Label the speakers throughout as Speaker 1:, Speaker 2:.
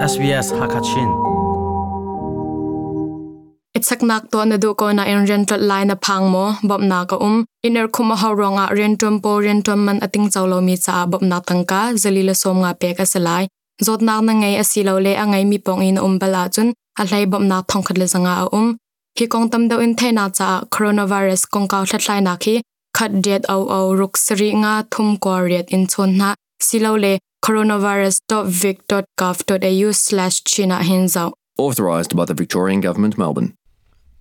Speaker 1: SBS Hakachin.
Speaker 2: Ichaknak to na du ko na in rian tlot lai na phang mo bom na ka iner khum a ho ronga rian tum po rian tum man ating chawlo mi cha bom na tangka zalila som nga pe ka salai zot nak na ngai asilo le angai mi pong in bala chun a hlai bom na thong khat le zanga a hi kong tam do in the na cha coronavirus kong kaw thlai na khi khat det au au ruk sri nga thum ko riat in chon na silo le coronavirus.vic.gov.au/china hinzau.
Speaker 3: Authorised by the Victorian Government, Melbourne.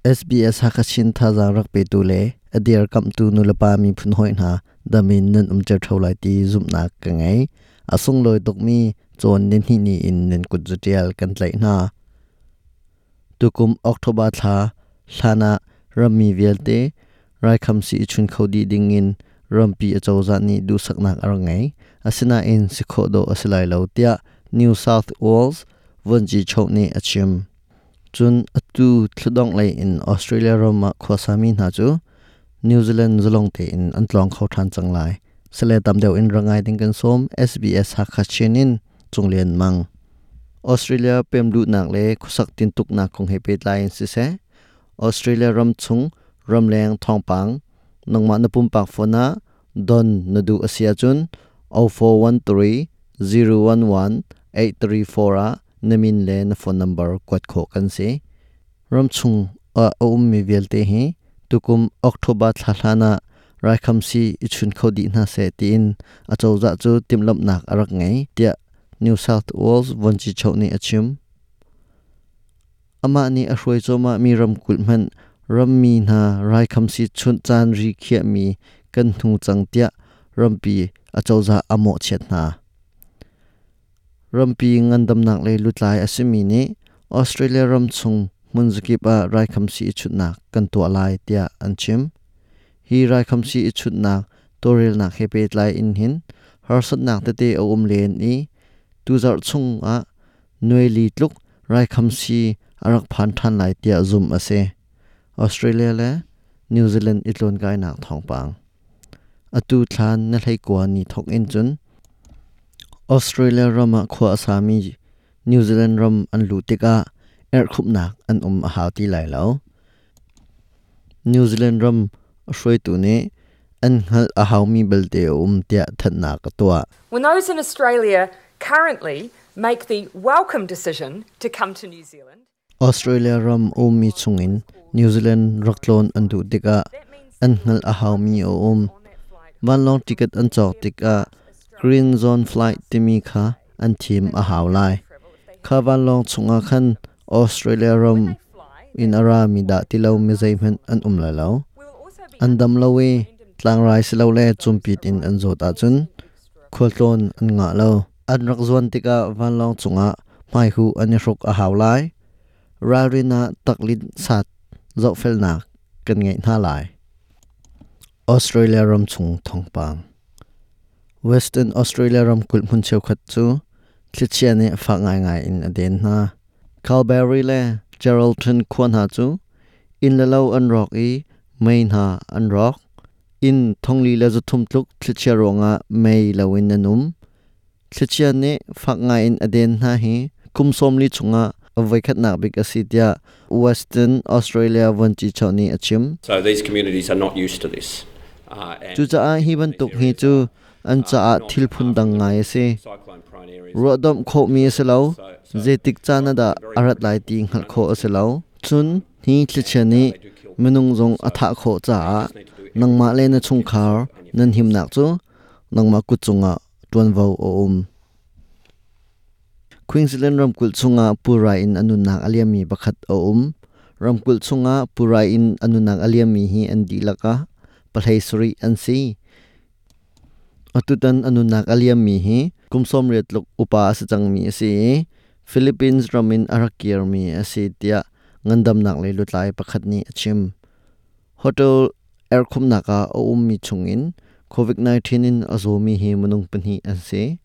Speaker 4: SBS Hakachin thazaang rak petu le adir kamtu nulapa mi phun hoi hna damin nan umter tholai ti zumnak ka ngei asung loi tukmi chon nin hi ni in nan kut zutial kan tlai hna tukum October thla hlana rammi vialte raikham si chun khodi ding in rampi achawza ni du saknak ar ngai asina in sikho do asilai lo tia New South Wales vonji chokni achim chun atu thludong lei in Australia rama khwasami na chu New Zealand zalong te in antlong kho than changlai sele tam deuh in rangai ding kan som SBS Hakachinin chunglian mang Australia pemlu nak le khusak tin tuk nak khong he pe tlai si se Australia ram chung ramleng thongpang nangma na pum pak phona don na du asia chun 0413 011 834 a namin le na phone number kwat kho kan se ram chung a um mi velte hi tukum October thla raikham si ichun khodi na se tin achawza chu timlam nak arak ngai tia New South Wales vonchi chawni achim ama ni a hruai choma mi ram kul man ram mi na raikham si chun chan ri khia mi kan hnu chang tia rampi achawza amo chet na rampi ngandam nak le lutlai asimi ni Australia ram chung munzukip a raikham si chut nak kan to lai tia anchim hi raikham si chut nak torel nak hepe tlai in hin harsat nak te te om len i tu zar chung a nuili tluk raikham si arak phan than lai tia zum ase Australia le New Zealand itlon kai nak thongpang atu thlan na hlei kwa ni thok in chun Australia rama khwa asami New Zealand ram an lu tika er khup nak an a hau ti lai lo New Zealand ram hroi tu ne an hal a hau mi belte tia that na ka tua.
Speaker 5: When those in Australia currently make the welcome decision to come to New Zealand,
Speaker 4: Australia ram mi chungin New Zealand raklon an du tika an hal a hau mi van long ticket an chok tika green zone flight timi kha an thim a hau lai kha van long chunga khan Australia ram in ara mi da tilo mi zai man an la lo an dam lo we tlang rai silo le chumpit in an zot a chun kholtlon an nga lo an rak zuan tika van long chunga mai hu an ruk a hau lai ralrina taklin sat zo fel nak kan ngai na lai Australia ram chung thongpang Western Australia ram kul mun cheu khat chu thlichia ne fa ngai ngai in aden na Calgary le Geraldton khwan ha chu in la lo an rock i main ha an rock in thongli la zu thum tluk thlichia ronga mei lawin anum thlichia ne fa ngai in aden na hi kumsom li chunga avai khat nak bik asitia Western Australia wanchi chawni achim.
Speaker 6: So these communities are not used to this.
Speaker 4: Chu cha a hi ban tuk hi chu an cha a thil phun dang ngai se rodom kho mi se lo zetik cha na da arat lai ti ngal kho ase lo chun hi thlichani minung zong atha kho cha nangma le na chung khar nan him nak chu nangma ku chunga tuan vo o Queensland ramkul chunga pura in anunak aliami pakhat a ramkul chunga pura in anunak aliami hi an di laka palhei suri an si atutan anunak aliami hi kumsom retluk upa asa changmi ase Philippines ramin arakir mi ase tia ngandam nak le lutlai pakhat ni achim hotel airkhum naka o mi chungin COVID-19 in azomi hi munung panhi ase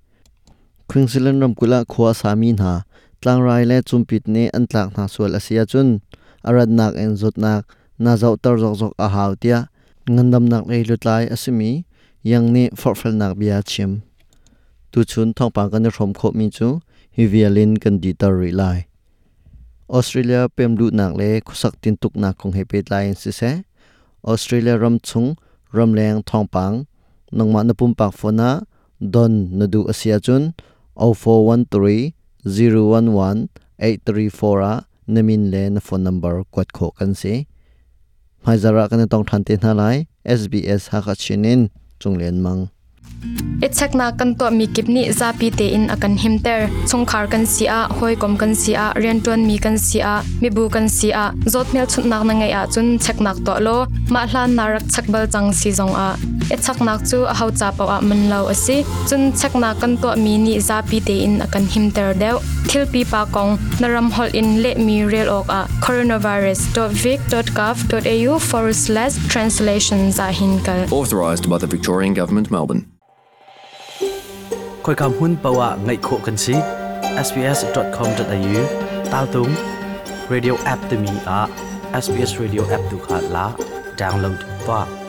Speaker 4: Queensland ramkula khwa sami na tlangrai le chumpit ne an tlak na sual asia chun arad nak en zot nak na zau tar zok zok a hau tia ngandam nak le lutlai asimi yang ni forfel nak bia chim tu chun thongpang kan rom kho mi chu Hi vial in kan dihter rih lai. Australia pemluhnak le khuasak tintuknak kong he pehtlai in siseh, Australia ram chung ramleng thawngpang nangmah na pumpak phone ah don na duh a si ahcun 0413 011 834 ah na min le na phone number kuat khawh kan si. Hmaizarh ah kan i tong ṭhan te hna lai. SBS Hakha Chin in Cung Lian Mang.
Speaker 2: I cheknak kan tuahmi kip nih zapi tein a kan himter. Chungkhar kan si ah, hawikom kan si ah, rianṭuanmi kan si ah, mibu kan si ah, zawt hmelchunhnak na ngeih ahcun cheknak tuah law mah hlan na rak chek bal cang si zongah i cheknak cu aho ca paoh ah man lo a si. Cun cheknak kan tuahmi nih zapi tein a kan himter deuh. Thil pipa kong na ram holh in lehmi rel awkah coronavirus.vic.gov.au forward slash translations ah hin kal.
Speaker 3: Authorised by the Victorian Government, Melbourne.
Speaker 1: Khoika hmun paoh ah ngaih khawh kan si. sbs.com.au tal tung radio app timi ah SBS radio app tu kha la download tuah.